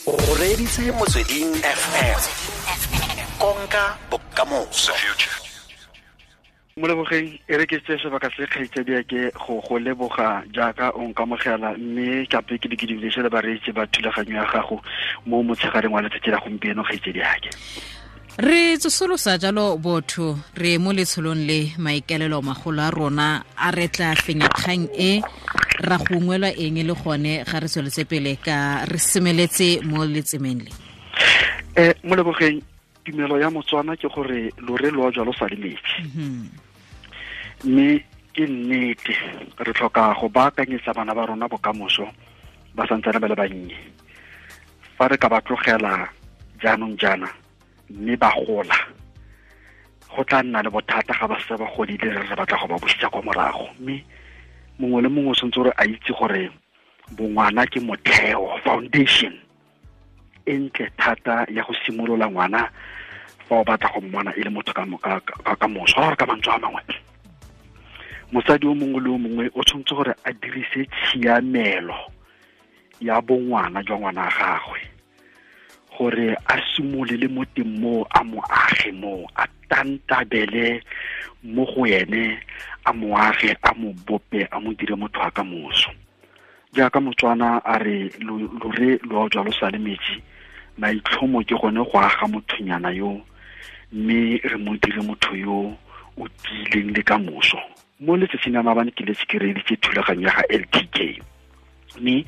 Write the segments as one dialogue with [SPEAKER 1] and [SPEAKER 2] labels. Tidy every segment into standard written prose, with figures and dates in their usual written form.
[SPEAKER 1] O reditse Motsweding FM. Konka bokamoso.
[SPEAKER 2] Molebogeng e re ke tse sebaka se kgaitsadi ke go leboga jaaka o nkamogela, mme kape ke di dumedise le bareetsi ba thulaganyo ya gago mo motshegareng wa letsatsi la gompieno kgaitsadi yake.
[SPEAKER 3] Re tsosolosa jalo botho re mo letsholong le maikelelo magolo a rona a re tla fenya kgang e ra gongwelwa eng le gone ga re tsweletse pele ka re semeletse mo letsemeng le.
[SPEAKER 2] Molebogeng, tumelo ya Motswana ke gore lore lo jalo sa le metsi. Mme ke nnete re tlhoka go baakanyetsa bana ba rona bokamoso ba santsane ba le bannye. Fa re ka ba tlogela jaanong jaana mme ba gola, go tla nna le bothata ga ba setse ba godile re batla go ba busetsa kwa morago. Mme mongwe le mongwe o tshwanetse gore a itse gore bongwana ke motheo, foundation e ntle thata ya go simolola ngwana fa o batla go mmona e le motho ka moso. Gore ka mantswe a mangwe, mosadi o mongwe le o mongwe o tshwanetse gore a dirise tshiamelo ya bongwana jwa ngwana gagwe gore a simolele mo teng mo, a mo age mo, a tantabele mo go ene, a mo age, a mo bope, a mo dire motho wa ka moso. Jaaka Motswana a re lore lo jalo sa le metsi, maitlhomo ke gone go aga mothonyana yo, mme re mo dire motho yo o tiileng le ka moso. Mo letsatsing la maabane ke letse ke reeditse thulaganyo ya ga LTK, mme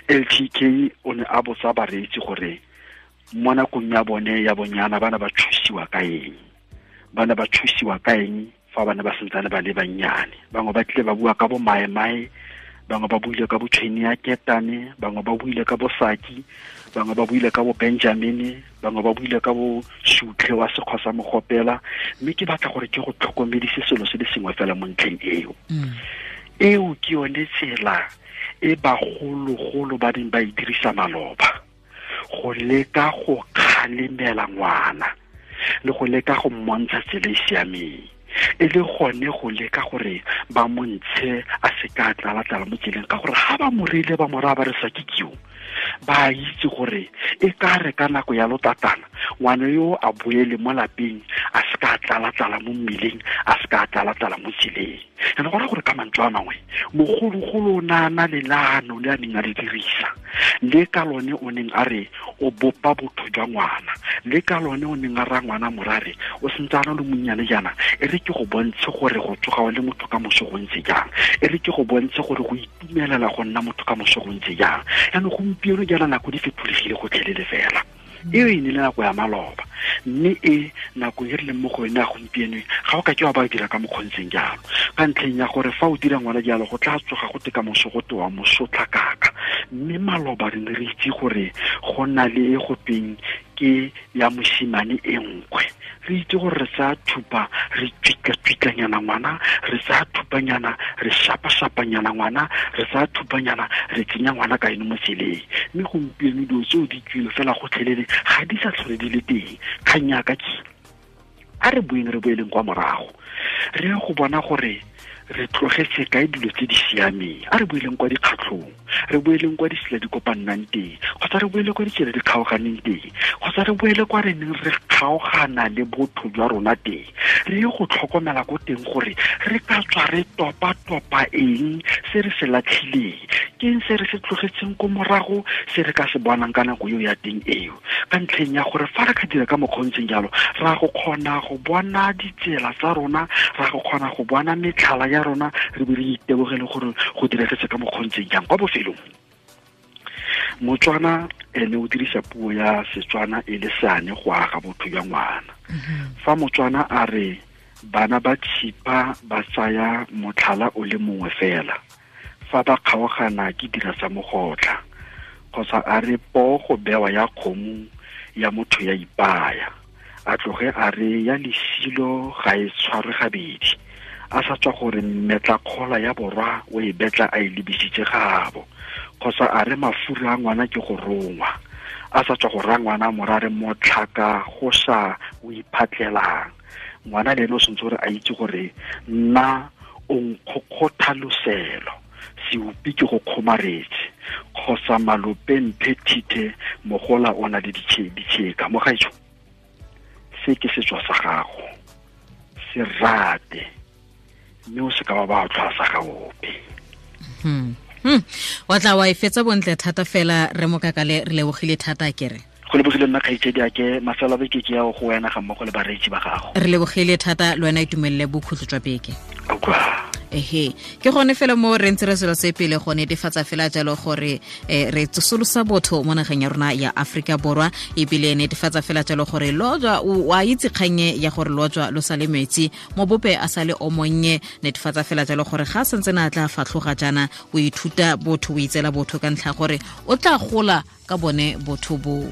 [SPEAKER 2] LTK o ne a botsa bareetsi gore mo nakong ya bone ya bonyana bana ba thusiwa ka eng, bana ba thusiwa ka eng fa bana ba santsane ba le bannyane. Bangwe ba tlile ba bua ka bo maemae, bangwe ba buile ka bo tshweni ya ketane, bangwe ba buile ka bo saki, bangwe ba buile ka bo Benjamine, bangwe ba buile ka bo sutlhe wa sekgwa sa mogopela. Mme ke batla gore ke go tlhokomedise selo se le sengwe fela mo ntlheng eo. Eo ke yone tsela e bagologolo ba neng ba e dirisa maloba go leka go kgalemela ngwana le go leka go mmontsha tsela e siameng, e le gone go leka gore ba montshe a seka a tlala-tlala mo tseleng, ka gore ga ba mo reile ba mo raya ba re sa ke keo, ba itse gore e ka re ka nako ya lotatana ngwana yo a boele mo lapeng a seka a tlala-tlala mo mmileng, a seka a tlala-tlala mo tseleng. And go raya gore ka mantswe a mangwe, mogologolo o ne a na le leano le a neng a le dirisa, le ka lone o neng a re o bopa botho jwa ngwana, le ka lone o neng a raya ngwana morare o sentse a na le monnyane jaana, e re ke go bontshe gore go tsoga o le motho ka moso go ntse jang, e re ke go bontshe gore go itumelela go nna motho ka moso go ntse jang. Jaanong gompieno jaana nako di fetolegile gotlhelele fela. Eo e ne le nako ya maloba, mme e nako e re leng mo go yone ya gompieno ga o ka ke wa ba dira ka mokgontseng jalo, ka ntlheng ya gore fa o dira ngwana jalo go tla tsoga go te ka moso go te wa mosotlakaka. Mme maloba re ne re itse gore go na le e go tweng ke ya mosimane e nkwe, re itse gore re tsaya thupa re tswitla-tswitlanyana ngwana, re tsaya thupanyana re shapa-shapanyana ngwana, re tsaya thupanyana re tsenya ngwana ka eno mo tseleng. Mme gompieno dilo tseo di tswile fela gotlhelele, ga di sa tlhole di le teng. Kgang ya ka ke a re boeng re boeleng kwa morago, re ye go bona gore re tlogetse kae dilo tse di siameng. A re boeleng kwa dikgatlhong, re boeleng kwa ditsela di kopannang teng, kgotsa re boele kwa ditsela di kgaoganeng teng, kgotsa re boele kwa re neng re kgaogana le botho jwa rona teng. Re ye go tlhokomela ko teng gore re ka tswa re topa-topa eng se re se latlhileng, ke eng se re se tlogetseng ko morago se re ka se bonang ka nako eo ya teng eo. Ka ntlheng ya gore fa re ka dira ka mokgwa o ntseng jalo, ra go kgona go bona ditsela tsa rona, ra go kgona go bona metlhala ya rona, re be re itebogele gore go diregetse ka mokgwa o ntseng jang. Kwa bofelong, Motswana ene o dirisa puo ya Setswana e le seane go aga botho jwa ngwana. Fa Motswana a re bana ba tshipa ba tsaya motlhala o le mongwe fela, fa ba kgaogana ke dira sa mogotla, kgotsa a re poo go bewa ya kgomo ya motho ya ipaya, a tloge a re ya lesilo ga e tshwarwe gabedi, a sa tswa gore mmetlakgola ya borwa o e betla a e lebisitse gabo, kgotsa a re mafura a ngwana ke go rongwa, a sa tswa go raya ngwana morare motlhaka go sa o iphatlelang. Ngwana le ene o tshwanetse gore a itse gore nna o nkgokgotha loselo, seupi ke go kgomaretse. Kgotsa malope mphe thithe mogola o na le ditšheka. Mogaetsho, se ke setso sa gago, se rate, mme o se ka wa ba tlhwasa ga ope.
[SPEAKER 3] Wa tla wa e fetsa bontle thata fela re Mokakale, re lebogile thata kere.
[SPEAKER 2] Go lebogile nna kgaitsedi ake, mafelo a beke ke ya go wena ga mmogo le bareetsi ba gago.
[SPEAKER 3] Re lebogile thata le wena, itumelele bokhutlo jwa beke. Ehe, ke gone fela mo re ntse re selo se pele go netefatsa fela jalo gore re tsosolosa botho mo nageng ya rona ya Aforika Borwa, ebile netefatsa fela jalo gore lojwa wa itse kgannye ya gore lojwa lo sale metsi mo bope a sale o monnye. Netefatsa fela jalo gore ga santse na tla fatlhoga jaana, o ithuta botho, o itseela botho ka ntlha gore o tla gola ka bone botho bo.